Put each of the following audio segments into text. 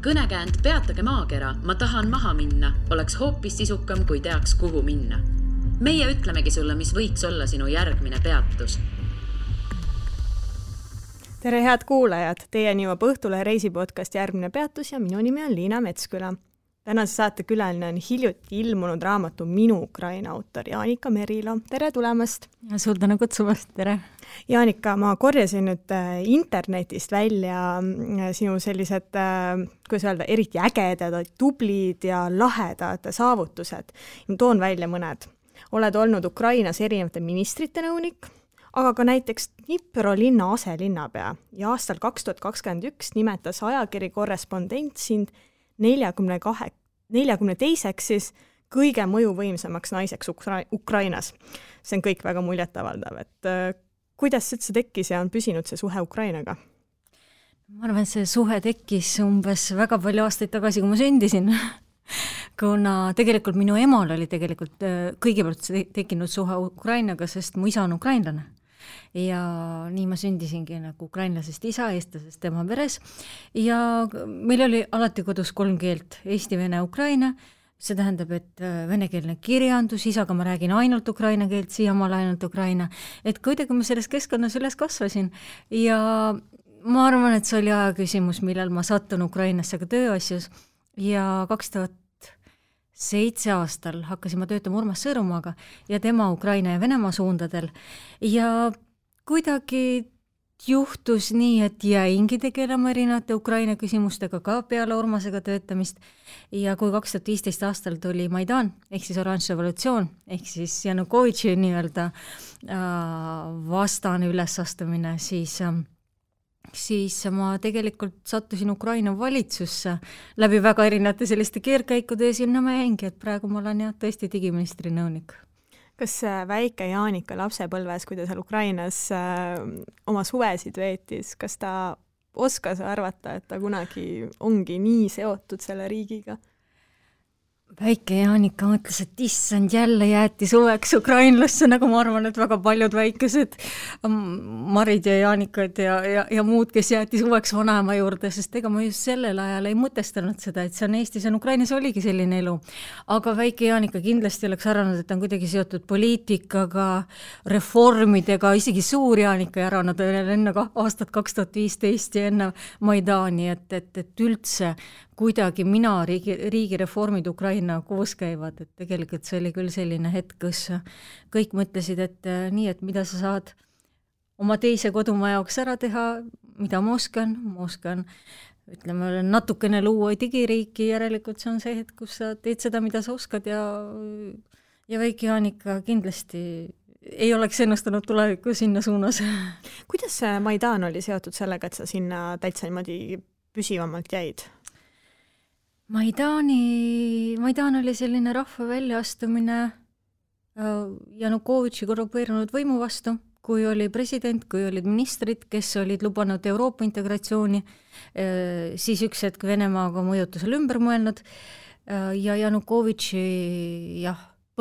Kõnekäänd peatage maakera, ma tahan maha minna, oleks hoopis sisukam, kui teaks, kuhu minna. Meie ütlemegi sulle, mis võiks olla sinu järgmine peatus. Tere head kuulajad, teieni jõuab Õhtule reisipodcast Järgmine peatus ja minu nimi on Liina Metsküla. Tänase saate külaline on hiljuti ilmunud raamatu Minu Ukraina autor Jaanika Merilo. Tere tulemast! Ja suur tänu kutsumast, tere! Jaanika, ma korjasin nüüd internetist välja sinu sellised, kuidas öelda, eriti ägedad, tublid ja lahedad saavutused. Toon välja mõned. Oled olnud Ukrainas erinevate ministrite nõunik, aga ka näiteks Dnipro linna aselinnapea ja aastal 2021 nimetas ajakiri Korrespondent sind 42-ks siis kõige mõjuvõimsamaks naiseks Ukrainas. See on kõik väga muljetavaldav, et kuidas see tekkis ja on püsinud see suhe Ukrainaga? Ma arvan, et see suhe tekkis umbes väga palju aastaid tagasi, kui ma sündisin. Kuna tegelikult minu emal oli tegelikult kõigepealt tekkinud suhe Ukrainaga, sest mu isa on ukrainlane. Ja nii ma sündisingi nagu ukrainlasest isa, eestlasest tema peres. Ja meil oli alati kodus 3 keelt, eesti, vene, ukraina. See tähendab, et venekeelne kirjandus, isaga ma räägin ainult ukraina keelt, siiamaal ainult ukraina. Et kuidagi ma selles keskkonnas üles kasvasin. Ja ma arvan, et see oli aja küsimus, millal ma sattun Ukrainasse ka tööasjus. Ja 2007 aastal hakkasin ma töötama Urmas Sõõrumaaga ja tema Ukraina ja Venemaa suundadel. Ja kuidagi juhtus nii, et jäingi tegelema erinevate Ukraina küsimustega ka peale Urmasega töötamist. Ja kui 2015 aastal tuli Maidan, ehk siis oranž revolutsioon, ehk siis Janukovitši nii-öelda vastane ülesastumine, siis ma tegelikult sattusin Ukraina valitsusse läbi väga erinevate selliste keerkäikude ja sinna ma jäingi, et praegu ma olen tõesti digiministri nõunik. Kas väike Jaanika lapsepõlves, kui ta seal Ukrainas oma suvesid veetis, kas ta oskas arvata, et ta kunagi ongi nii seotud selle riigiga? Väike Jaanika mõtles, et issand jälle jäeti suveks ukrainlasse, nagu ma arvan, et väga paljud väikesed Marid ja Jaanikad ja muud, kes jäeti suveks vanaema juurde, sest ega ma just sellel ajal ei mõtestanud seda, et see on Eestis ja Ukrainas oligi selline elu. Aga väike Jaanika kindlasti oleks arvanud, et on kuidagi seotud poliitikaga, reformidega, isegi suur Jaanika arvanud enne aastat 2015 ja enne Maidani, et üldse kuidagi mina riigi reformid Ukraina koos käivad, et tegelikult see oli küll selline hetk, kus kõik mõtlesid, et nii, et mida sa saad oma teise kodumaa jaoks ära teha, mida ma oskan, ütleme, natukene luua digiriiki, järelikult see on see hetk, kus sa teed seda, mida sa oskad ja väike Jaanika kindlasti ei oleks ennustanud tulevikku sinna suunas. Kuidas Maidan oli seotud sellega, et sa sinna täitsa niimoodi püsivamalt jäid? Maidan oli selline rahva väljaastumine Janukovitši korrupeerunud võimu vastu, kui oli president, kui olid ministrid, kes olid lubanud Euroopa integratsiooni, siis üks hetk Venemaaga mõjutusel ümber mõelnud ja Janukovitši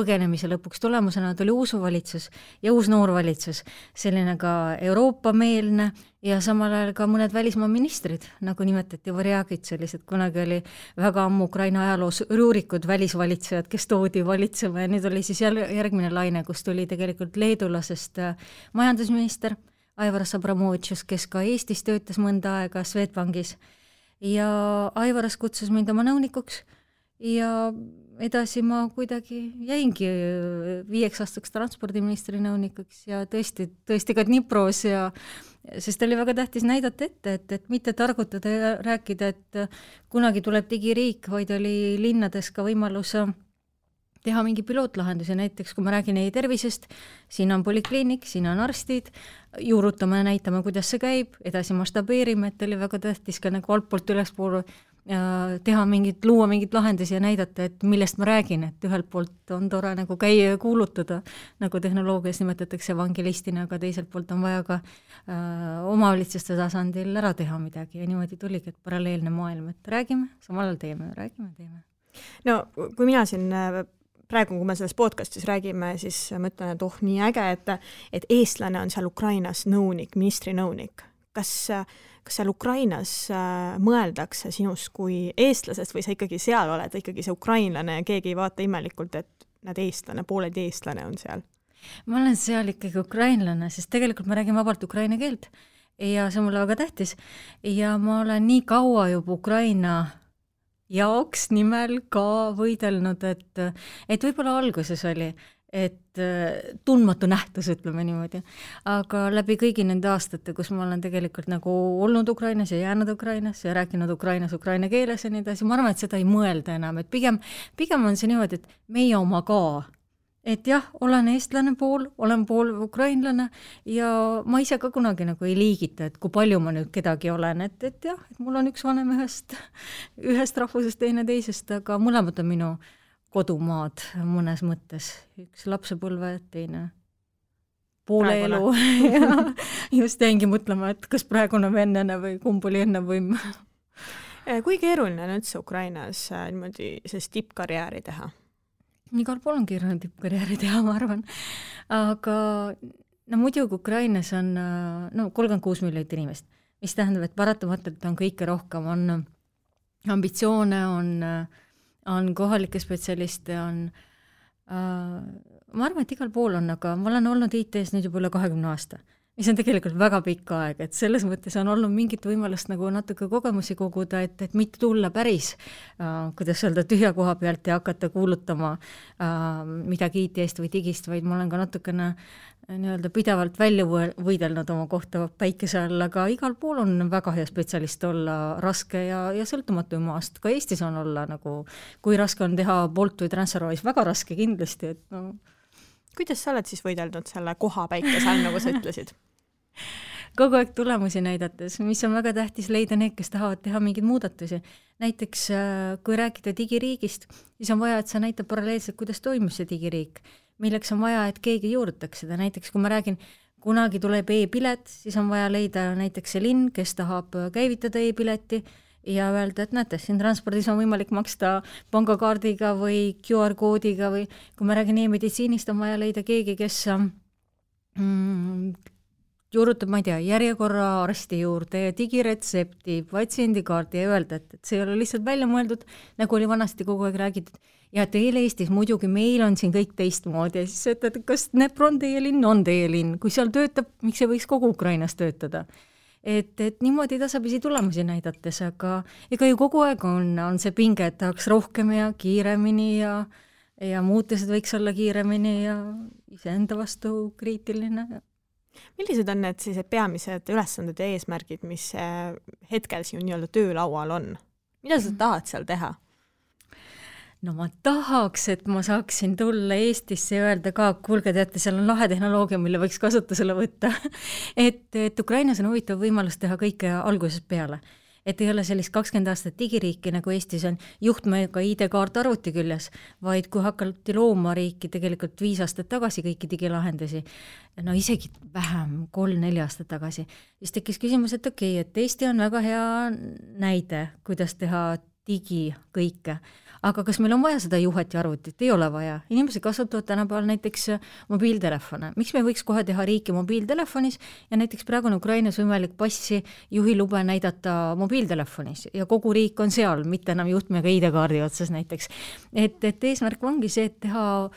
põgenemise lõpuks tulemusena tuli uus valitsus ja uus noor valitsus, selline ka Euroopa-meelne ja samal ajal ka mõned välismaa ministrid, nagu nimetati Varjagid, sellised kunagi oli väga ammu Ukraina ajaloos ruurikud välisvalitsejad, kes toodi valitsema ja nüüd oli siis järgmine laine, kus tuli tegelikult leedulasest majandusminister Aivaras Abramovitšus, kes ka Eestis töötas mõnda aega Swedbankis ja Aivaras kutsus mind oma nõunikuks ja edasi ma kuidagi jäingi 5 aastaks transpordiministri nõunikuks ja tõesti ka Dnipros sest oli väga tähtis näidata ette, et mitte targutada ja rääkida, et kunagi tuleb digiriik, vaid oli linnades ka võimalus teha mingi pilootlahendusi, näiteks kui ma räägin e-tervisest, siin on polikliinik, siin on arstid, juurutame ja näitame, kuidas see käib, edasi mastabeerime, et oli väga tähtis ka nagu altpoolt ülespool teha luua mingit lahendusi ja näidata, et millest ma räägin, et ühelt poolt on tore nagu käia ja kuulutada, nagu tehnoloogias nimetatakse evangelistina, aga teiselt poolt on vaja ka omavalitsuste tasandil ära teha midagi ja niimoodi tuligi, et paralleelne maailm, et räägime, samal ajal teeme. No kui mina siin praegu, kui me selles podcastis räägime, siis mõtlen, et nii äge, et eestlane on seal Ukrainas nõunik, ministri nõunik. kas seal Ukrainas mõeldakse sinust kui eestlasest või sa ikkagi seal oled, ikkagi see ukrainlane ja keegi ei vaata imelikult, et näed eestlane, pooled eestlane on seal? Ma olen seal ikkagi ukrainlane, sest tegelikult ma räägin vabalt ukraina keelt ja see on mulle väga tähtis ja ma olen nii kaua juba Ukraina jaoks nimel ka võidelnud, et võib-olla alguses oli, et tundmatu nähtus, ütleme niimoodi, aga läbi kõigi nende aastate, kus ma olen tegelikult nagu olnud Ukrainas ja jäänud Ukrainas ja rääkinud Ukrainas ukraina keeles ja nii edasi, ma arvan, et seda ei mõelda enam, et pigem on see niimoodi, et meie oma ka. Et jah, olen eestlane pool, olen pool ukrainlane ja ma ise ka kunagi nagu ei liigita, et kui palju ma nüüd kedagi olen, et jah, et mul on üks vanem ühest rahvusest, teine teisest, aga mõlemad on minu kodumaad mõnes mõttes. Üks lapsepõlve, teine poole elu. Ja just jäingi mõtlema, et kas praegune või enne või kumb oli enne või... Kui keeruline on üldse Ukrainas niimoodi sellist tippkarjääri teha? Igal pool on keeruline tippkarjääri teha, ma arvan. Aga muidugi Ukrainas on 36 miljonit inimest, mis tähendab, et paratamatult on kõike rohkem, on ambitsioone, on kohalikke spetsialiste, ma arvan, et igal pool on, aga ma olen olnud IT-s nüüd juba üle 20 aasta, mis on tegelikult väga pikk aeg, et selles mõttes on olnud mingit võimalust nagu natuke kogemusi koguda, et mitte tulla päris, kuidas öelda, tühja koha pealt ja hakata kuulutama midagi IT-st või digist, vaid ma olen ka natukene nii-öelda pidevalt välja võidelnud oma kohta päikese all, aga igal pool on väga hea spetsialist olla raske ja sõltumatu maast. Ka Eestis on olla nagu, kui raske on teha Bolt või TransferWise, väga raske kindlasti, et no. Kuidas sa oled siis võidelnud selle koha päikese all, nagu sa ütlesid? Kogu aeg tulemusi näidates, mis on väga tähtis leida need, kes tahavad teha mingeid muudatusi. Näiteks, kui rääkida digiriigist, siis on vaja, et sa näitab paralleelselt, kuidas toimus see digiriik, milleks on vaja, et keegi juurutaks seda. Näiteks, kui ma räägin, kunagi tuleb e-pilet, siis on vaja leida näiteks see linn, kes tahab käivitada e-pileti ja öelda, et näete, siin transpordis on võimalik maksta pangakaardiga või QR-koodiga või kui ma räägin e-meditsiinist, on vaja leida keegi, kes juurutab, ma ei tea, järjekorra arsti juurde ja digiretsepti, patsiendikaardi ja öelda, et see ei ole lihtsalt välja mõeldud, nagu oli vanasti kogu aeg räägitud. Ja teil Eestis muidugi meil on siin kõik teistmoodi ja siis ütled, kas Dnepr on teie linn, on teie linn. Kui seal töötab, miks ei võiks kogu Ukrainas töötada? Et niimoodi tasapisi tulemusi näidates, aga ega ju kogu aeg on see pinge, et tahaks rohkem ja kiiremini ja muutused võiks olla kiiremini ja iseenda vastu kriitiline. Millised on need siis peamised ülesanded ja eesmärgid, mis hetkel siin nii-öelda töölaual on? Mida sa tahad seal teha? No ma tahaks, et ma saaksin tulla Eestisse ja öelda ka, kuulge, teate, seal on lahe tehnoloogia, mille võiks kasutusele võtta. et Ukrainas on huvitav võimalus teha kõike algusest peale. Et ei ole sellist 20 aastat digiriiki, nagu Eestis on juhtmega ID-kaart arvuti küljes, vaid kui hakati looma riiki tegelikult 5 aastat tagasi kõiki digilahendusi, no isegi vähem, 3-4 aastat tagasi, siis tekkis küsimus, et okei, et Eesti on väga hea näide, kuidas teha digi kõike. Aga kas meil on vaja seda juhet ja arvutit? Ei ole vaja. Inimesed kasutavad tänapäeval näiteks mobiiltelefone. Miks me võiks kohe teha riiki mobiiltelefonis ja näiteks praegu on Ukrainas võimalik passi juhilube näidata mobiiltelefonis ja kogu riik on seal, mitte enam juhtmega ID-kaardi otsas näiteks. Et eesmärk ongi see, et teha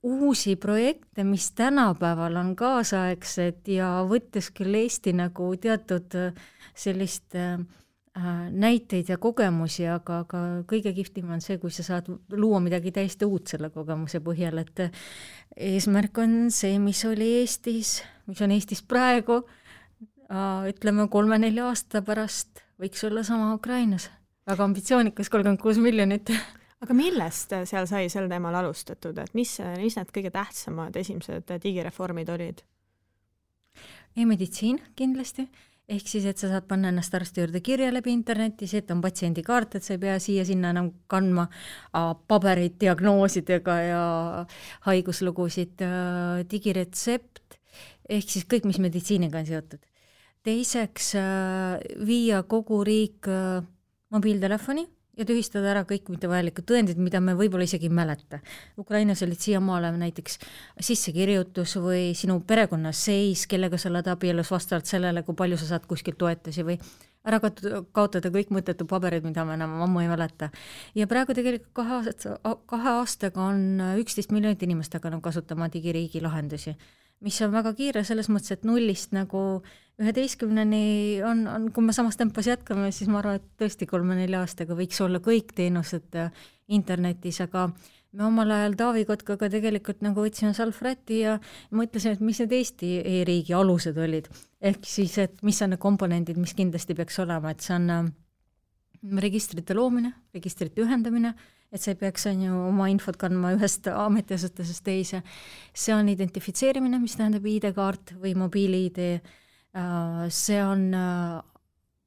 uusi projekte, mis tänapäeval on kaasaegsed ja võttes küll Eesti nagu teatud sellist näiteid ja kogemusi, aga kõige kihvtim on see, kui sa saad luua midagi täiesti uut selle kogemuse põhjal, et eesmärk on see, mis oli Eestis, mis on Eestis praegu, ütleme 3-4 aasta pärast võiks olla sama Ukrainas. Väga ambitsioonikas, 36 miljonit. Aga millest seal sai sel teemal alustatud, et mis need kõige tähtsamad esimesed digireformid olid? E-meditsiin kindlasti. Ehk siis, et sa saad panna ennast arsti juurde kirja läbi interneti, see, et on patsiendikaart, et sa ei pea siia-sinna enam kandma paberid diagnoosidega ja haiguslugusid, digiretsept, ehk siis kõik, mis meditsiiniga on seotud. Teiseks, viia kogu riik mobiiltelefoni ja tühistada ära kõik mittevajalikud tõendid, mida me võib-olla isegi ei mäleta. Ukrainas olid siiamaale näiteks sissekirjutus või sinu perekonnas seis, kellega sa oled abielus vastavalt sellele, kui palju sa saad kuskilt toetusi või ära kaotada kõik mõttetu paberid, mida me enam ammu ei mäleta. Ja praegu tegelikult 2 aastaga on 11 miljonit inimest hakanud kasutama digiriigi lahendusi, mis on väga kiire selles mõttes, et 0-st nagu 11-ni on, kui me samas tempos jätkame, siis ma arvan, et tõesti 3-4 aastaga võiks olla kõik teenused internetis, aga me omal ajal Taavi Kotkaga tegelikult nagu võtsime salvräti ja mõtlesime, et mis need Eesti e-riigi alused olid. Ehk siis, et mis on need komponendid, mis kindlasti peaks olema, et see on registrite loomine, registrite ühendamine, et see peaks oma infot kandma ühest ametiasutusest teise. See on identifitseerimine, mis tähendab ID-kaart või mobiili-ID. See on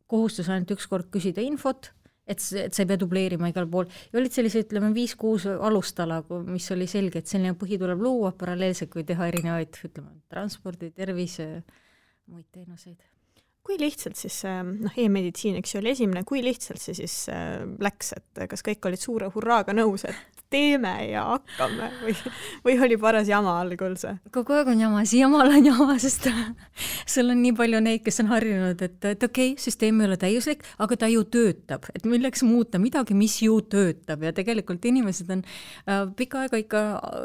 kohustus ainult üks kord küsida infot, et sa ei pea dubleerima igal pool. Ja olid sellise, ütleme, 5-6 alustala, mis oli selge, et selline põhi tuleb luua paralleelselt, kui teha erinevaid, ütleme, transpordi, tervise, muid teenuseid. Kui lihtsalt siis, e-meditsiin, eks ju, oli esimene, kui lihtsalt see siis läks, et kas kõik olid suure hurraaga nõus, et teeme ja hakkame või oli paras jama algul see? Kogu aeg on jama, siiamaal on jama, sest sul on nii palju neid, kes on harjunud, et okei, süsteem ei ole täiuslik, aga ta ju töötab, et milleks muuta midagi, mis ju töötab ja tegelikult inimesed on pikka aega ikka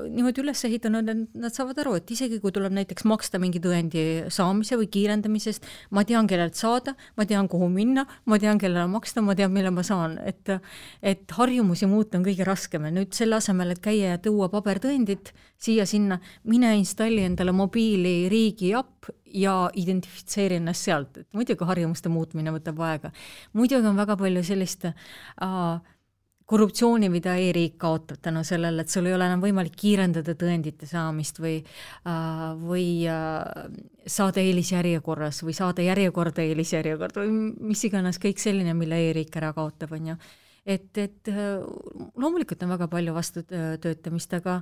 niimoodi üles ehitanud, et nad saavad aru, et isegi kui tuleb näiteks maksta mingi tõendi saamise või kiirendamisest, ma tean, kellelt saada, ma tean, kuhu minna, ma tean, kellele maksta, ma tean, mille ma saan, et harjumusi muuta on kõige raskem ja nüüd selle asemel, et käia ja tuua pabertõendid siia-sinna, mine installi endale mobiili riigi app ja identifitseeri ennast sealt, et muidugi harjumuste muutmine võtab aega. Muidugi on väga palju sellist korruptsiooni, mida e-riik kaotab tänu sellele, et sul ei ole enam võimalik kiirendada tõendite saamist või saada eelisjärjekorras või saada järjekorda eelisjärjekorda või mis iganes kõik selline, mille e-riik ära kaotab, on ju. Et loomulikult on väga palju vastu töötamist, aga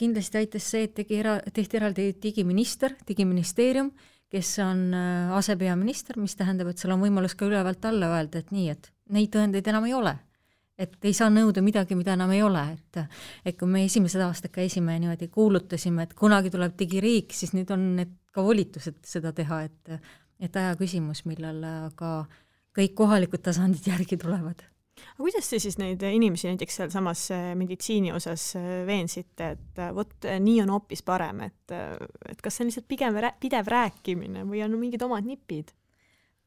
kindlasti aitas see, et tehti eraldi digiministeerium, kes on asepeaminister, mis tähendab, et sul on võimalus ka ülevalt alla öelda, et nii, et neid tõendeid enam ei ole. Et ei saa nõuda midagi, mida enam ei ole. Et kui me esimesed aastad käisime ja niimoodi kuulutasime, et kunagi tuleb digiriik, siis nüüd on need ka volitused seda teha, et aja küsimus, millal ka kõik kohalikud tasandid järgi tulevad. Aga kuidas te siis neid inimesi näiteks seal samas meditsiini osas veensite, et võt, nii on hoopis parem, et kas see on lihtsalt pigem pidev rääkimine või on mingid omad nipid?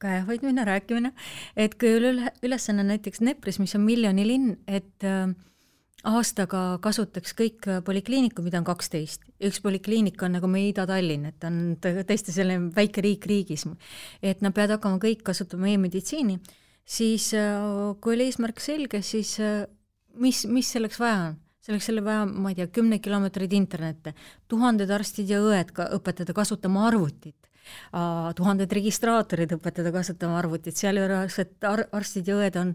Käehoidmine, rääkimine, et kui ülesanne näiteks Nepris, mis on miljonilinn, et aastaga kasutaks kõik polikliiniku, mida on 12. Üks polikliinik on nagu meie Ida-Tallinn, et on tõesti selline väike riik riigis, et nad peavad hakkama kõik kasutama e-meditsiini, siis kui oli eesmärk selge, siis mis selleks vaja on? Selleks selle vaja, ma ei tea, 10 kilomeetrid internette, 1000 arstid ja õed õpetada kasutama arvutit, 1000 registraatorid õpetada kasutama arvutit, seal juures, et arstid ja õed on,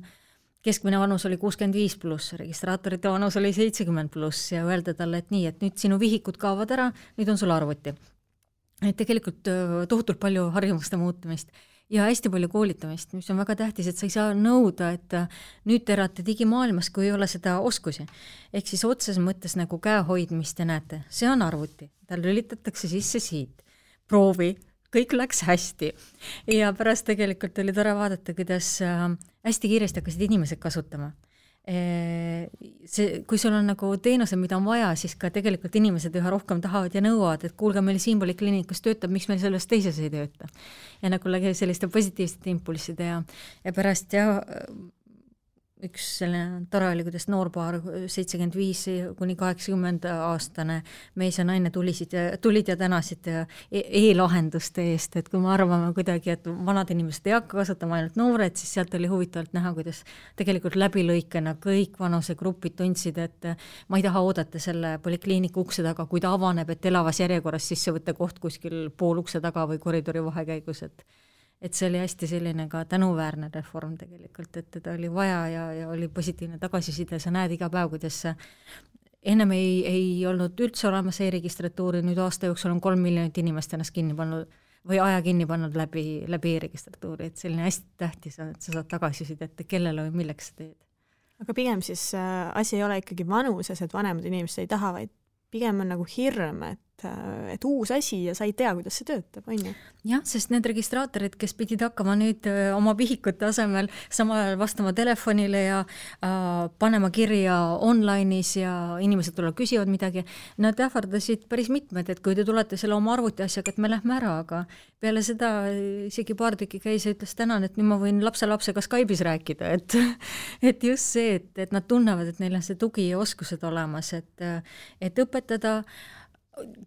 keskmine vanus oli 65 pluss, registraatorite vanus oli 70 pluss ja öelda talle, et nii, et nüüd sinu vihikud kaovad ära, nüüd on sul arvuti. Et tegelikult tohutult palju harjumuste muutumist ja hästi palju koolitamist, mis on väga tähtis, et sa ei saa nõuda, et nüüd te elate digimaailmas, kui ei ole seda oskusi. Ehk siis otses mõttes nagu käehoidmist ja näete, see on arvuti, tal lülitatakse sisse siit, proovi, kõik läks hästi. Ja pärast tegelikult oli tore vaadata, kuidas hästi kiiresti hakkasid inimesed kasutama. Kui sul on nagu teenuse, mida on vaja, siis ka tegelikult inimesed üha rohkem tahavad ja nõuavad, et kuulge, meil siin polikliinikus töötab, miks meil selles teises ei tööta. Ja nagu selliste positiivsete impulsside ja pärast üks selline tore oli, kuidas noorpaar 75 kuni 80 aastane mees ja naine tulid ja tänasid e-lahenduste eest, et kui me arvame kuidagi, et vanad inimesed ei hakka kasutama ainult noored, siis sealt oli huvitavalt näha, kuidas tegelikult läbilõikena kõik vanusegrupid tundsid, et ma ei taha oodata selle polikliiniku ukse taga, kui ta avaneb, et elavas järjekorras sisse võtta koht kuskil pool ukse taga või koridori vahekäigus, et see oli hästi selline ka tänuväärne reform tegelikult, et teda oli vaja ja oli positiivne tagasiside, sa näed iga päev, kuidas ennem ei olnud üldse olemas e-registratuuri, nüüd aasta jooksul on 3 miljonit inimest ennast kinni pannud või aja kinni pannud läbi e-registratuuri, et selline hästi tähtis on, et sa saad tagasiside, et kellele või milleks sa teed. aga pigem siis asi ei ole ikkagi vanuses, et vanemad inimesed ei taha, vaid pigem on nagu hirm, et uus asi ja sa ei tea, kuidas see töötab, on ju? Jah, sest need registraatorid, kes pidid hakkama nüüd oma vihikute asemel samal ajal vastama telefonile ja panema kirja online'is ja inimesed tulevad küsivad midagi, nad ähvardasid päris mitmed, et kui te tulete selle oma arvuti asjaga, et me lähme ära, aga peale seda isegi paar tükki käis ja ütles tänan, et nüüd ma võin lapselapsega Skype'is rääkida, et just see, et nad tunnevad, et neil on see tugi ja oskused olemas, et õpetada,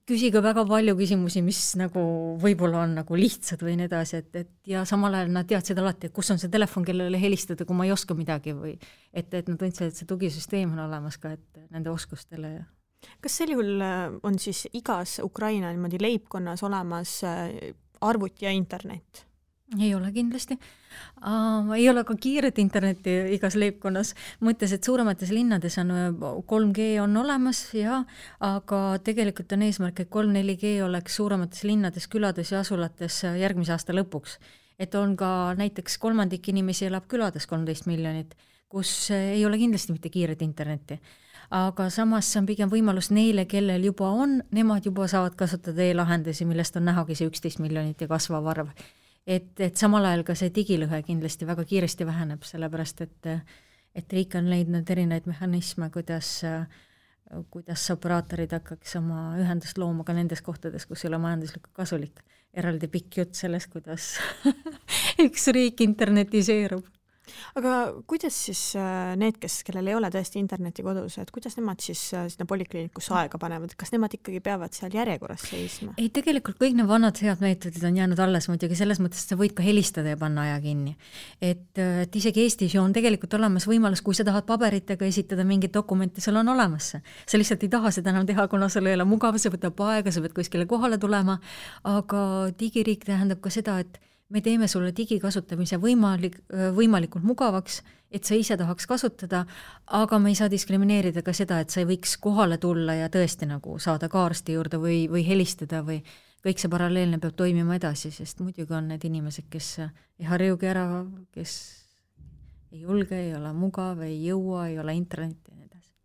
küsige väga palju küsimusi, mis nagu võib-olla on nagu lihtsad või nii edasi, et ja samal ajal nad teadsid alati, et kus on see telefon, kellele helistada, kui ma ei oska midagi või et nad tundsid, et see tugisüsteem on olemas ka, et nende oskustele. Kas sel juhul on siis igas Ukraina niimoodi leibkonnas olemas arvuti ja internet? Ei ole kindlasti. Ei ole ka kiiret internetti igas leibkonnas. Mõttes, et suuremates linnades on 3G on olemas, ja, aga tegelikult on eesmärk, et 3-4G oleks suuremates linnades, külades ja asulates järgmise aasta lõpuks. Et on ka näiteks 3% inimesi elab külades 13 miljonit, kus ei ole kindlasti mitte kiiret internetti. Aga samas see on pigem võimalus neile, kellel juba on, nemad juba saavad kasutada e-lahendusi, millest on nähagi see 11 miljonit ja kasvav arv. Et samal ajal ka see digilõhe kindlasti väga kiiresti väheneb, sellepärast et riik on leidnud erinevaid mehhanisme, kuidas operaatorid hakkaks oma ühendust looma ka nendes kohtades, kus ei ole majanduslikult kasulik. Eraldi pikk jutt sellest, kuidas üks riik internetiseerub. Aga kuidas siis need, kellel ei ole tõesti interneti kodus, et kuidas nemad siis sinna polikliinikusse aega panevad? Kas nemad ikkagi peavad seal järjekorras seisma? Ei, tegelikult kõik need vanad head meetodid on jäänud alles muidugi selles mõttes, et sa võid ka helistada ja panna aja kinni. Et isegi Eestis on tegelikult olemas võimalus, kui sa tahad paberitega esitada mingit dokumenti, sul on olemas see. Sa lihtsalt ei taha seda enam teha, kuna sul ei ole mugav, see võtab aega, sa pead kuskile kohale tulema, aga digiriik tähendab ka seda, et me teeme sulle digikasutamise võimalikult mugavaks, et sa ise tahaks kasutada, aga me ei saa diskrimineerida ka seda, et sa ei võiks kohale tulla ja tõesti nagu saada ka arsti juurde või helistada või kõik see paralleelne peab toimima edasi, sest muidugi on need inimesed, kes ei harjugi ära, kes ei julge, ei ole mugav, ei jõua, ei ole internetti ja nii edasi.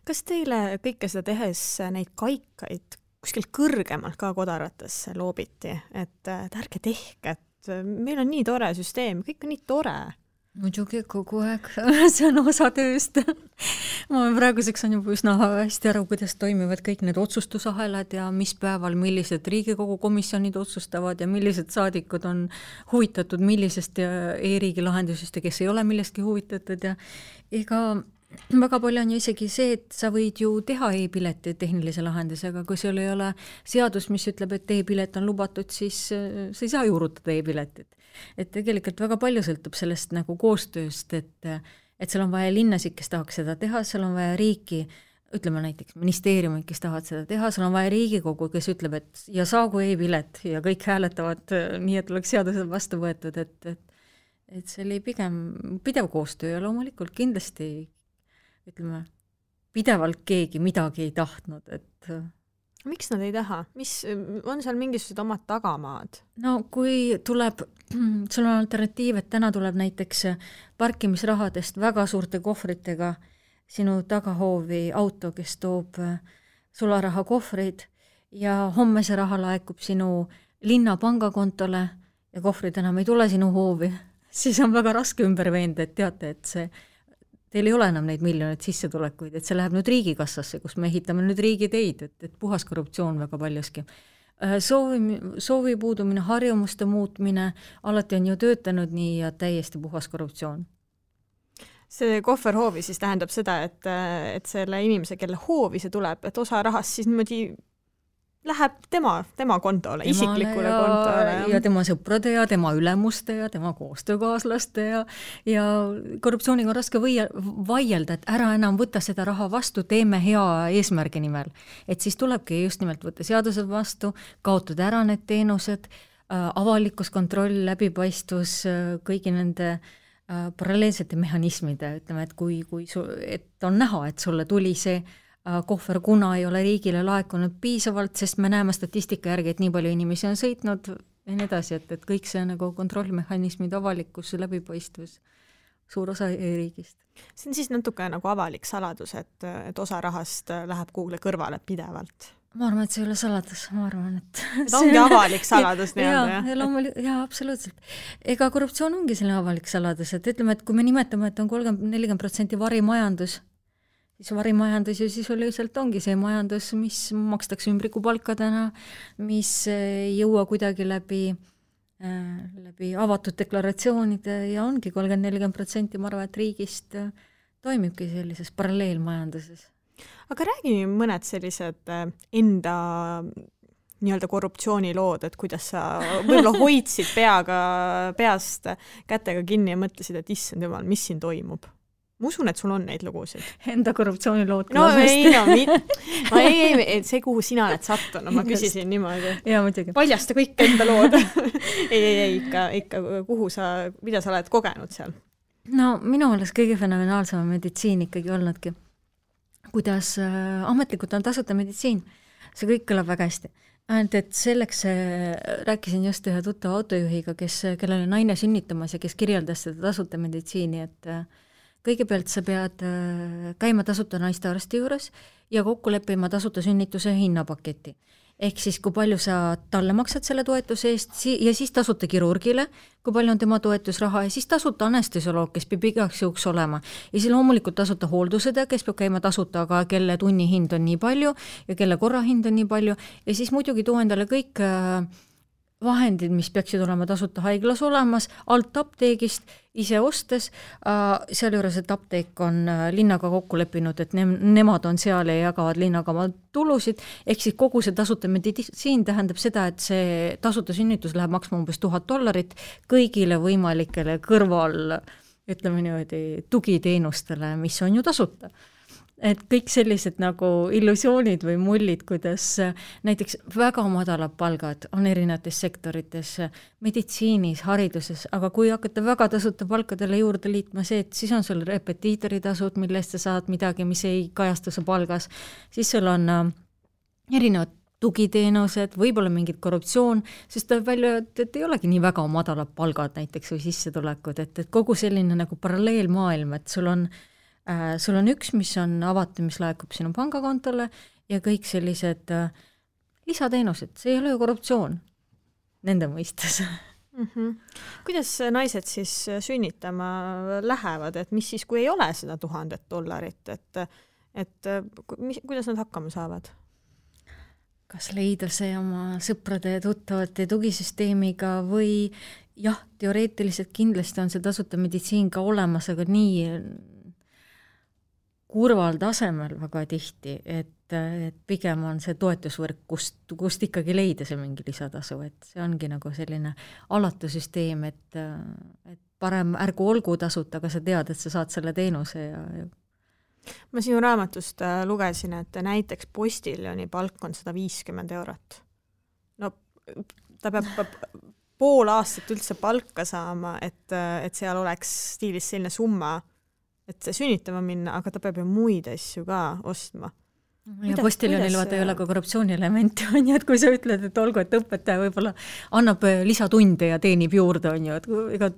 Kas teile kõike seda tehes neid kaikaid kuskil kõrgemalt ka kodaratesse loobiti, et ärge tehke, et meil on nii tore süsteem, kõik on nii tore. Muidugi kogu aeg, see on osa tööst. Ma praeguseks on juba üsna hästi aru, kuidas toimivad kõik need otsustusahelad ja mis päeval millised Riigikogu komisjonid otsustavad ja millised saadikud on huvitatud millisest e-riigi lahendusest ja kes ei ole millestki huvitatud ja ega väga palju on ju isegi see, et sa võid ju teha e-pileti tehnilise lahendusega, kui sul ei ole seadus, mis ütleb, et e-pilet on lubatud, siis sa ei saa juurutada e-piletit. Et tegelikult väga palju sõltub sellest nagu koostööst, et seal on vaja linnasid, kes tahaks seda teha, seal on vaja riiki, ütleme näiteks ministeeriumid, kes tahavad seda teha, seal on vaja Riigikogu, kes ütleb, et ja saagu e-pilet ja kõik hääletavad nii, et oleks seadused vastu võetud, et see oli pigem pidev koostöö ja loomulikult kindlasti ütleme, pidevalt keegi midagi ei tahtnud, et miks nad ei taha? On seal mingisugused omad tagamaad? No kui tuleb, sul on alternatiiv, et täna tuleb näiteks parkimisrahadest väga suurte kohvritega sinu tagahoovi auto, kes toob sularaha kohvrid ja homme see raha laekub sinu linna pangakontole ja kohvrid enam ei tule sinu hoovi, siis on väga raske ümber veenda, et teate, et teil ei ole enam neid miljoneid sissetulekuid, et see läheb nüüd riigikassasse, kus me ehitame nüüd riigiteid, et puhas korruptsioon väga paljuski. Soovi puudumine, harjumuste muutmine, alati on ju töötanud nii ja täiesti puhas korruptsioon. See kohverhoovi siis tähendab seda, et selle inimese, kelle hoovi see tuleb, et osa rahast siis niimoodi läheb tema kontole, isiklikule kontole. Ja tema sõprade ja tema ülemuste ja tema koostöökaaslaste ja korruptsiooniga on raske vaielda, et ära enam võtta seda raha vastu, teeme hea eesmärgi nimel. Et siis tulebki just nimelt võtta seadused vastu, kaotada ära need teenused, avalikus kontroll, läbipaistvus, kõigi nende paralleelsete mehhanismide, ütleme, et on näha, et sulle tuli see kohver, kuna ei ole riigile laekunud piisavalt, sest me näeme statistika järgi, et nii palju inimesi on sõitnud ja nii edasi, et kõik see nagu kontrollmehhanismid, avalikkus, läbipaistvus suur osa riigist. See on siis natuke nagu avalik saladus, et osa rahast läheb kuhugi kõrvale pidevalt. Ma arvan, et see ei ole saladus, ma arvan, et ongi avalik saladus nii-öelda, jah, absoluutselt. Ega korruptsioon ongi selline avalik saladus, et ütleme, et kui me nimetame, et on 30-40% varimajandus, siis varimajandus ju sisuliselt ongi see majandus, mis makstakse ümbrikupalkadena, mis ei jõua kuidagi läbi avatud deklaratsioonide ja ongi 30-40%, ma arvan, et riigist toimibki sellises paralleelmajanduses. Aga räägi mõned sellised enda nii-öelda korruptsioonilood, et kuidas sa võib-olla hoidsid peast kätega kinni ja mõtlesid, et issand jumal, mis siin toimub? Ma usun, et sul on neid lugusid. Enda korruptsioonilood. Ei, see kuhu sina oled sattunud, ma küsisin niimoodi. Jaa, muidugi. Paljasta kõik enda lood. ei, ikka mida sa oled kogenud seal? No minu meelest kõige fenomenaalsem meditsiin ikkagi olnudki. Kuidas ametlikult on tasuta meditsiin. See kõik kõlab väga hästi. Ainult, et selleks rääkisin just ühe tuttava autojuhiga, kellel on naine sünnitamas ja kes kirjeldas seda tasuta meditsiini, et kõigepealt sa pead käima tasuta naistearsti juures ja kokku leppima tasuta sünnituse hinnapaketi. Ehk siis, kui palju sa talle maksad selle toetuse eest ja siis tasuta kirurgile, kui palju on tema toetusraha ja siis tasuta anestesioloog, kes peab igaks juhuks olema. Ja siis loomulikult tasuta hooldusõde, kes peab käima tasuta, aga kelle tunnihind on nii palju ja kelle korrahind on nii palju ja siis muidugi too endale kõik vahendid, mis peaksid olema tasuta haiglas olemas, alt apteegist, ise ostes, seal juures, et apteek on linnaga kokku leppinud, et nemad on seal ja jagavad linnaga oma tulusid, ehk siis kogu see tasuta meditsiin tähendab seda, et see tasuta sünnitus läheb maksma umbes $1000 kõigile võimalikele kõrval, ütleme niimoodi, tugiteenustele, mis on ju tasuta. Et kõik sellised nagu illusioonid või mullid, kuidas näiteks väga madalad palgad on erinevates sektorites, meditsiinis, hariduses, aga kui hakata väga tasuta palkadele juurde liitma see, et siis on sul repetiitoritasud, millest sa saad midagi, mis ei kajastu su palgas, siis sul on erinevad tugiteenused, võib-olla mingid korruptsioon, sest tuleb välja, et ei olegi nii väga madalad palgad näiteks või sissetulekud, et kogu selline nagu paralleelmaailm, et sul on üks, mis on avatud, mis laekub sinu pangakontole ja kõik sellised lisateenused, see ei ole ju korruptsioon nende mõistes. Kuidas naised siis sünnitama lähevad, et mis siis, kui ei ole seda $1000, et kuidas nad hakkama saavad? Kas leida see oma sõprade ja tuttavate tugisüsteemiga või jah, teoreetiliselt kindlasti on see tasuta meditsiin ka olemas, aga nii kurval tasemel väga tihti, et pigem on see toetusvõrk, kust ikkagi leida see mingi lisatasu, et see ongi nagu selline alatu süsteem, et parem ärgu olgu tasuta, aga sa tead, et sa saad selle teenuse ja Ma sinu raamatust lugesin, et näiteks postiljoni palk on €150. No ta peab pool aastat üldse palka saama, et seal oleks stiilis selline summa, et sünnitama minna, aga ta peab ju muid asju ka ostma. Ja postiljonil vaata ei ole ka korruptsiooni-elementi, on ju, et kui sa ütled, et olgu, et õpetaja võib-olla annab lisatunde ja teenib juurde, on ju, et ega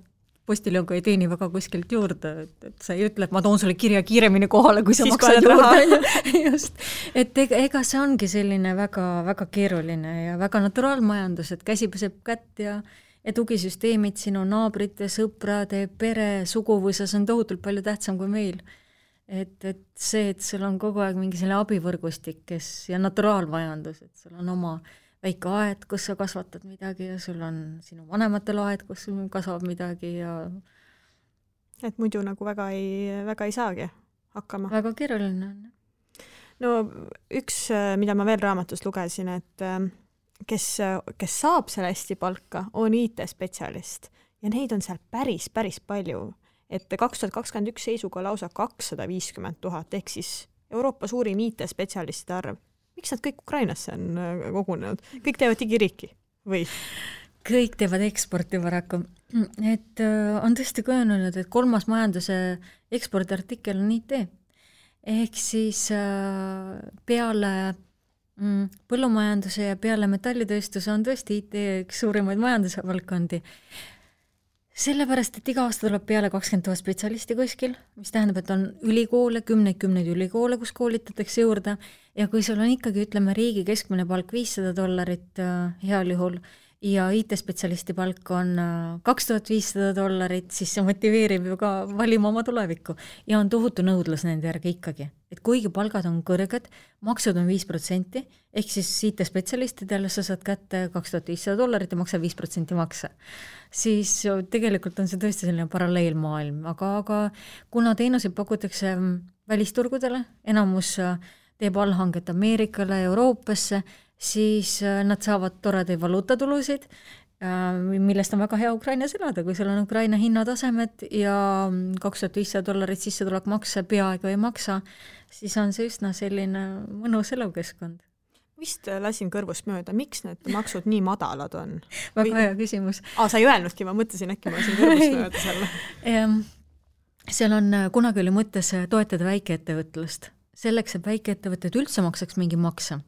postiljon ka ei teeni väga kuskilt juurde, et sa ei ütle, et ma toon sulle kirja kiiremini kohale, kui sa maksad juurde. Just. Et ega see ongi selline väga, väga keeruline ja väga naturaalmajandus, et käsi peseb kätt ja tugisüsteemid sinu naabrite, sõprade, pere, suguvõsas on tohutult palju tähtsam kui meil. Et see, et sul on kogu aeg mingi selle abivõrgustik, ja naturaalmajandus, et sul on oma väike aed, kus sa kasvatad midagi ja sul on sinu vanematel aed, kus kasvab midagi ja et muidu nagu väga ei saagi hakkama. Väga keeruline on. No üks, mida ma veel raamatust lugesin, et kes saab selle hästi palka, on IT-spetsialist ja neid on seal päris palju, et 2021 seisuga lausa 250 000, ehk siis Euroopa suurim IT-spetsialistide arv. Miks nad kõik Ukrainasse on kogunenud? Kõik teevad digiriiki või? Kõik teevad eksporti paraku. Et on tõesti kujunenud, et 3. majanduse ekspordiartikkel on IT. Ehk siis peale põllumajanduse ja peale metallitööstuse on tõesti IT üks suurimaid majanduse valdkondi. Sellepärast, et iga aasta tuleb peale 20 000 spetsialisti kuskil, mis tähendab, et on ülikoole, kümneid ülikoole, kus koolitatakse juurde ja kui sul on ikkagi, ütleme, riigi keskmine palk $500 heal juhul ja IT-spetsialisti palk on $2500, siis see motiveerib ju ka valima oma tulevikku ja on tohutu nõudlus nende järgi ikkagi. Et kuigi palgad on kõrged, maksud on 5%, ehk siis IT-spetsialistidele sa saad kätte $2500 ja maksa 5% makse. Siis tegelikult on see tõesti selline paralleelmaailm, aga kuna teenuseid pakutakse välisturgudele, enamus teeb allhanget Ameerikale, Euroopasse, siis nad saavad toredaid valuutatulusid, millest on väga hea Ukrainas elada, kui sul on Ukraina hinnatasemed ja $2500 sissetulek makse peaaegu ei maksa, siis on see üsna selline mõnus elukeskkond. Vist lasin kõrvust mööda, miks need maksud nii madalad on? Väga hea küsimus. Sa ei öelnudki, ma mõtlesin äkki, ma lasin kõrvust mööda selle. Seal on kunagi oli mõttes toetada väikeettevõtlust. Selleks, et väikeettevõtted üldse maksaks mingi makse,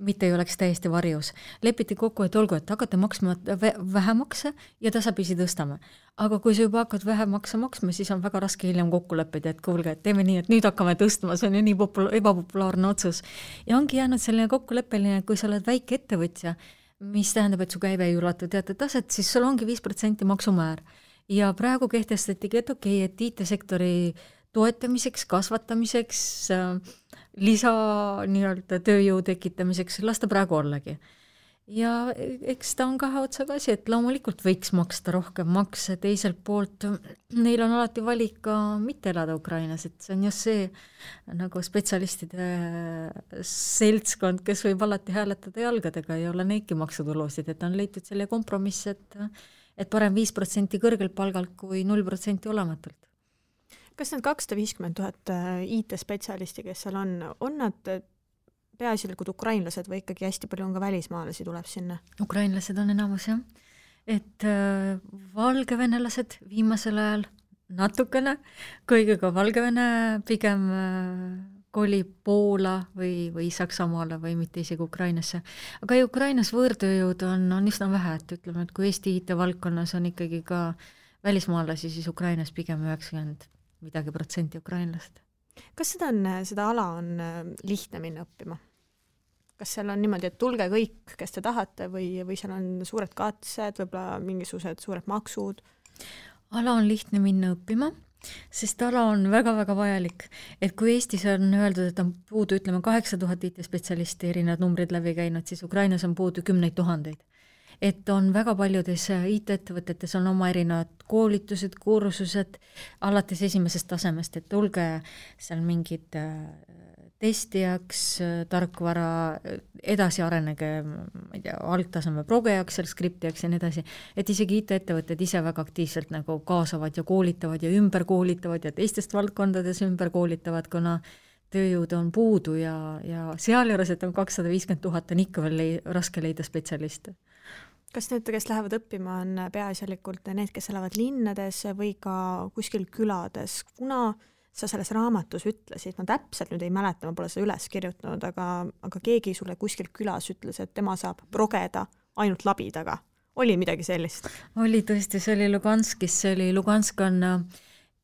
mitte ei oleks täiesti varjus. Lepiti kokku, et olgu, et hakata maksma vähemakse ja tasapisi tõstame. Aga kui sa juba hakkad vähemakse maksma, siis on väga raske hiljem kokku leppida, et kuulge, et teeme nii, et nüüd hakkame tõstma, see on ju nii ebapopulaarne otsus. Ja ongi jäänud selline kokkuleppeline, et kui sa oled väike ettevõtja, mis tähendab, et su käive ei ulatu teatud taset, siis sul ongi 5% maksumäär. Ja praegu kehtestatigi, et okei, et IT-sektori toetamiseks, kasvatamiseks, lisa nii-öelda tööjõu tekitamiseks, lasta praegu ollagi. Ja eks ta on kahe otsaga asi, et loomulikult võiks maksta rohkem makse, teiselt poolt neil on alati valik ka mitte elada Ukrainas, et see on just see nagu spetsialistide seltskond, kes võib alati hääletada jalgadega ja olla neidki maksutulusid, et on leitud selle kompromiss, et parem 5% kõrgelt palgalt kui 0% olematult. Kas need 250 000 IT-spetsialisti, kes seal on nad peaasjalikud ukrainlased või ikkagi hästi palju on ka välismaalasi tuleb sinna? Ukrainlased on enamus, jah. Et valgevenelased viimasel ajal natukene, kuigi ka Valgevene pigem kolib Poola või Saksamaale või mitte isegi Ukrainasse. Aga Ukrainas võõrtööjõud on üsna vähe, et ütleme, et kui Eesti IT-valdkonnas on ikkagi ka välismaalasi, siis Ukrainas pigem 90% ukrainlast. Kas seda ala on lihtne minna õppima? Kas seal on niimoodi, et tulge kõik, kes te tahate või seal on suured katsed, võib-olla mingisugused suured maksud? Ala on lihtne minna õppima, sest ala on väga-väga vajalik. Et kui Eestis on öeldud, et on puudu, ütleme, 8000 IT-spetsialisti erinevad numbrid läbi käinud, siis Ukrainas on puudu 10 000. Et on väga paljudes IT-ettevõtetes on oma erinevad koolitused, kursused alates esimesest tasemest, et tulge seal mingid testijaks, tarkvara, edasi arenege, ma ei tea, algtaseme progejaks, seal skriptijaks ja nii edasi, et isegi IT-ettevõtted ise väga aktiivselt nagu kaasavad ja koolitavad ja ümber koolitavad ja teistest valdkondades ümber koolitavad, kuna tööjõud on puudu ja seal juures, et on 250 000, on ikka veel raske leida spetsialiste. Kas need, kes lähevad õppima, on peaasjalikult need, kes elavad linnades või ka kuskil külades? Kuna sa selles raamatus ütlesid, ma täpselt nüüd ei mäleta, ma pole seda üles kirjutanud, aga keegi sulle kuskil külas ütles, et tema saab progeda ainult labidaga. Oli midagi sellist? Oli tõesti, see oli Luganskis, Lugansk on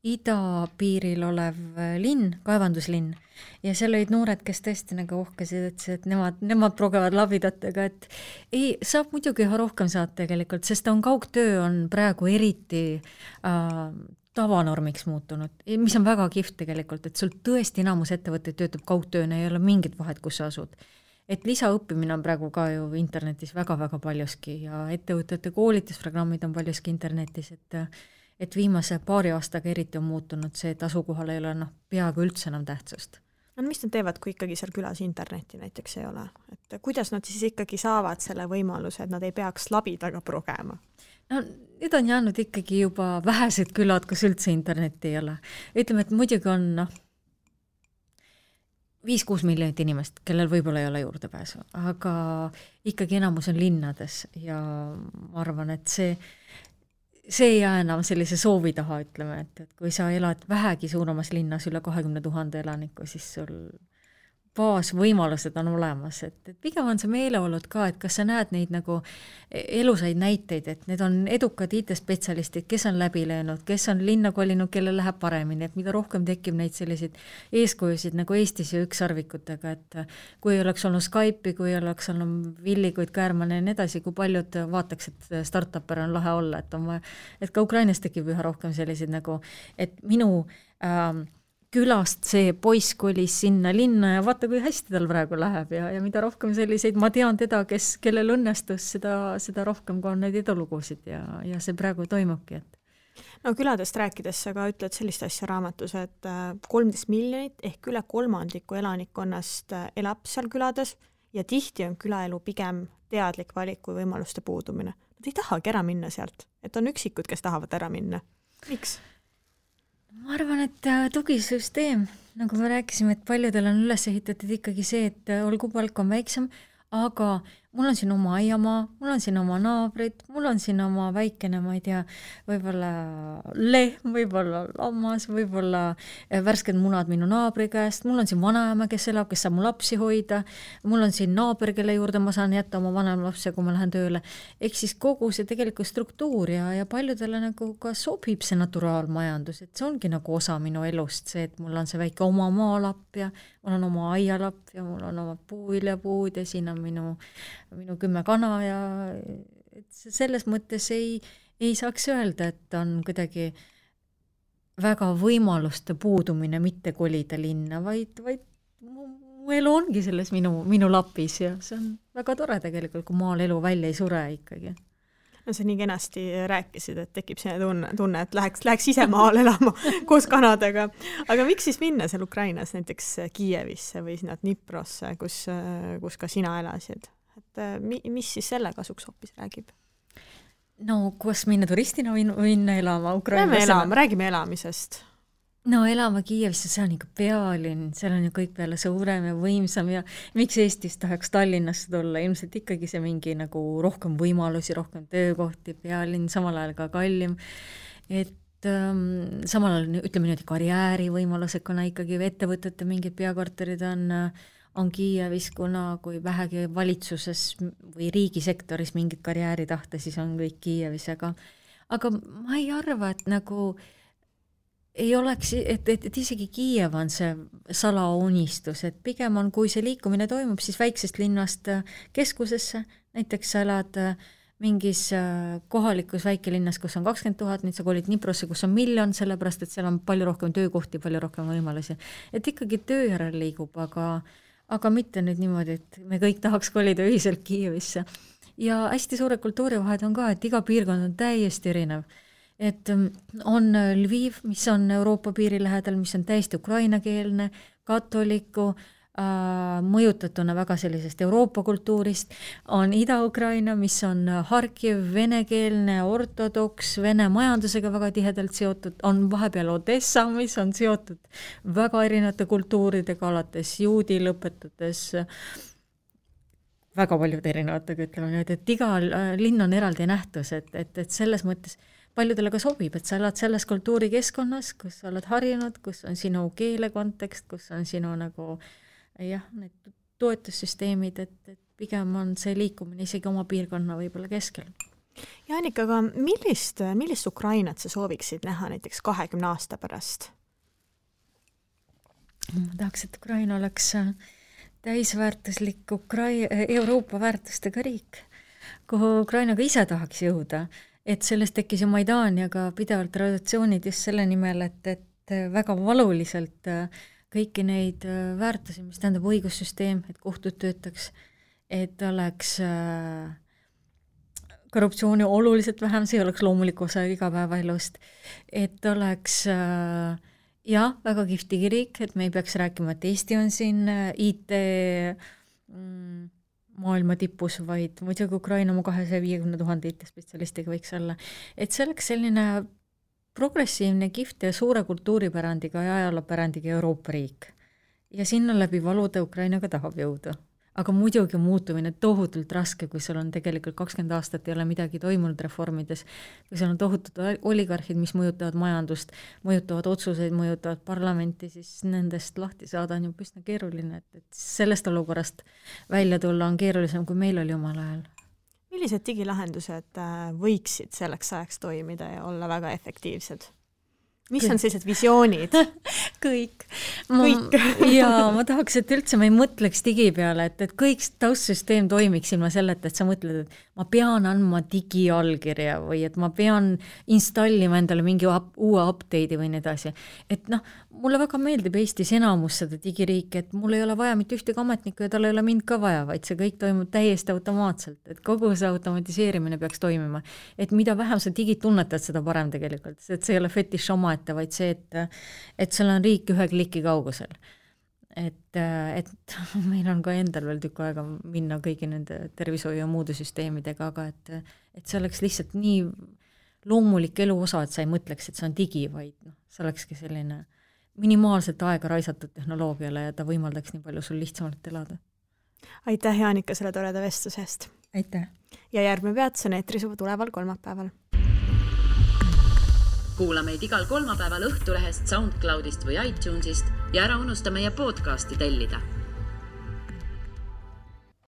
idapiiril olev linn, kaevanduslinn, ja seal olid noored, kes tõesti nagu uhkesid, et nemad progevad labidatega, et ei, saab muidugi rohkem saada tegelikult, sest kaugtöö on praegu eriti tavanormiks muutunud, mis on väga kihvt tegelikult, et sul tõesti enamus ettevõtteid töötab kaugtööna, ei ole mingit vahet, kus sa asud. Et lisaõppimine on praegu ka ju internetis väga-väga paljuski ja ettevõtete koolitusprogrammid on paljuski internetis, et viimase paari aastaga eriti on muutunud see, et asukohal ei ole peaaegu üldse enam tähtsust. No mis nad teevad, kui ikkagi seal külas internetti näiteks ei ole? Et kuidas nad siis ikkagi saavad selle võimaluse, et nad ei peaks labidaga progema? No, need on jäänud ikkagi juba vähesed külad, kus üldse internetti ei ole. Ütleme, et muidugi on 5-6 miljonit inimest, kellel võib-olla ei ole juurdepääsu, aga ikkagi enamus on linnades ja ma arvan, et see ei jää enam sellise soovi taha, ütleme, et kui sa elad vähegi suuremas linnas üle 20 000 elaniku, siis sul baasvõimalused on olemas, et pigem on see meeleolud ka, et kas sa näed neid nagu elusaid näiteid, et need on edukad IT-spetsialistid, kes on läbi löönud, kes on linna kolinud, kellel läheb paremini, et mida rohkem tekib neid selliseid eeskujusid nagu Eestis ja ükssarvikutega, et kui oleks olnud Skype'i, kui oleks olnud Villikuid, Käärmane ja nii edasi, kui paljud vaataks, et startupper on lahe olla, et ka Ukrainas tekib üha rohkem selliseid nagu, et minu külast see poiss kolis sinna linna ja vaata, kui hästi tal praegu läheb ja mida rohkem selliseid, ma tean teda, kellel õnnestus, seda rohkem ka on neid edulugusid ja see praegu toimubki, et no küladest rääkides sa ka ütled sellist asja raamatus, et 13 miljonit ehk üle kolmandiku elanikkonnast elab seal külades ja tihti on külaelu pigem teadlik valik kui võimaluste puudumine. Nad ei tahagi ära minna sealt, et on üksikud, kes tahavad ära minna. Miks? Ma arvan, et tugisüsteem, nagu me rääkisime, et paljudel on üles ehitatud ikkagi see, et olgu palk on väiksem, aga mul on siin oma aiamaa, mul on siin oma naabrid, mul on siin oma väikene, ma ei tea, võib-olla lehm, võib-olla lammas, võib-olla värsked munad minu naabri käest, mul on siin vanaema, kes elab, kes saab mu lapsi hoida, mul on siin naaber, kelle juurde ma saan jätta oma vanem lapse, kui ma lähen tööle. Ehk siis kogu see tegelikult struktuur ja paljudele nagu ka sobib see naturaalmajandus, et see ongi nagu osa minu elust, see, et mul on see väike oma maalapp ja mul on oma aialapp ja mul on oma puuviljapuud ja siin on minu 10 kana ja et selles mõttes ei saaks öelda, et on kuidagi väga võimaluste puudumine mitte kolida linna, vaid mu elu ongi selles minu lapis ja see on väga tore tegelikult, kui maal elu välja ei sure ikkagi. No sa nii kenasti rääkisid, et tekib selline tunne, et läheks ise maal elama koos kanadega. Aga miks siis minna seal Ukrainas näiteks Kiievisse või sinna Dniprosse, kus ka sina elasid? Et mis siis selle kasuks hoopis räägib? No, kus minna turistina minna elama Ukrainas? Räägime elamisest. No elama Kiievisse, see on ikka pealinn, seal on ju kõik peale suurem ja võimsam ja miks Eestis tahaks Tallinnasse tulla, ilmselt ikkagi see mingi nagu rohkem võimalusi, rohkem töökohti, pealinn, samal ajal ka kallim, et samal ajal ütleme niimoodi karjäärivõimalused, kuna ikkagi ettevõtete mingid peakorterid on Kiievis, kuna kui vähegi valitsuses või riigisektoris mingit karjääri tahta, siis on kõik Kiievis, aga ma ei arva, et nagu ei oleks, et isegi Kiiev on see salaunistus, et pigem on, kui see liikumine toimub, siis väiksest linnast keskusesse, näiteks sa elad mingis kohalikus väikelinnas, kus on 20 000, nüüd sa kolid Dniprosse, kus on 1 miljon, sellepärast, et seal on palju rohkem töökohti, palju rohkem võimalusi. Et ikkagi töö järel liigub, aga mitte nüüd niimoodi, et me kõik tahaks kolida ühiselt Kiievisse. Ja hästi suure kultuurivahed on ka, et iga piirkond on täiesti erinev. Et on Lviv, mis on Euroopa piiri lähedal, mis on täiesti ukrainakeelne, katoliku, mõjutatuna väga sellisest Euroopa kultuurist, on Ida-Ukraina, mis on Harkiv, venekeelne, ortodoks, vene majandusega väga tihedalt seotud, on vahepeal Odessa, mis on seotud väga erinevate kultuuridega, alates juudi lõpetades väga paljude erinevatega, ütleme nüüd, et iga linn on eraldi nähtus, et selles mõttes paljudele ka sobib, et sa elad selles kultuurikeskkonnas, kus sa oled harjunud, kus on sinu keele kontekst, kus on sinu nagu need toetussüsteemid, et pigem on see liikumine isegi oma piirkonna võib-olla keskel. Ja Annika, aga millist Ukrainat sa sooviksid näha näiteks 20 aasta pärast? Ma tahaks, et Ukraina oleks täisväärtuslik Euroopa väärtustega riik, kuhu Ukraina ka ise tahaks jõuda, et sellest tekkis ju Maidan ja ka pidevalt traditsioonid just selle nimel, et väga valuliselt kõiki neid väärtusi, mis tähendab õigussüsteem, et kohtud töötaks, et oleks korruptsiooni oluliselt vähem, see oleks loomulik osa igapäevaelust, et oleks väga kihvti riik, et me ei peaks rääkima, et Eesti on siin IT maailma tipus, vaid muidugi Ukraina oma 250 000 IT-spetsialistiga võiks olla. Et see oleks selline progressiivne, kihvt ja suure kultuuripärandiga ja ajaloopärandiga Euroopa riik. Ja sinna läbi valuda Ukrainaga tahab jõuda. aga muidugi muutumine tohutult raske, kui sul on tegelikult 20 aastat ei ole midagi toimunud reformides, kui seal on tohutud oligarhid, mis mõjutavad majandust, mõjutavad otsuseid, mõjutavad parlamenti, siis nendest lahti saada on ju üsna keeruline, et sellest olukorrast välja tulla on keerulisem, kui meil oli omal ajal. Millised digilahendused võiksid selleks ajaks toimida ja olla väga efektiivsed? Mis on sellised visioonid? Kõik. Jaa, ma tahaks, et üldse ma ei mõtleks digi peale, et kõik taustsüsteem toimiks ilma selleta, et sa mõtled, et ma pean andma digiallkirja või et ma pean installima endale mingi uue update'i või nii edasi. Et mulle väga meeldib Eestis enamus seda digiriiki, et mul ei ole vaja mitte ühtegi ametnikku ja tal ei ole mind ka vaja, vaid see kõik toimub täiesti automaatselt, et kogu see automatiseerimine peaks toimima. Et mida vähem sa digit tunnetad, seda parem tegelikult, et see ei ole fetiš omaette, vaid see, et seal on riik ühe kliki kaugusel. Et meil on ka endal veel tükk aega minna kõigi nende tervishoiu ja muude süsteemidega, aga et see oleks lihtsalt nii loomulik elu osa, et sa ei mõtleks, et see on digi, vaid see olekski selline minimaalselt aega raisatud tehnoloogiale ja ta võimaldaks nii palju sul lihtsamalt elada. Aitäh, Jaanika, selle toreda vestusest. Aitäh. Ja järgmine peatus on eetris juba tuleval kolmapäeval. Kuula meid igal kolmapäeval Õhtulehest, SoundCloudist või iTunesist ja ära unusta meie podcasti tellida.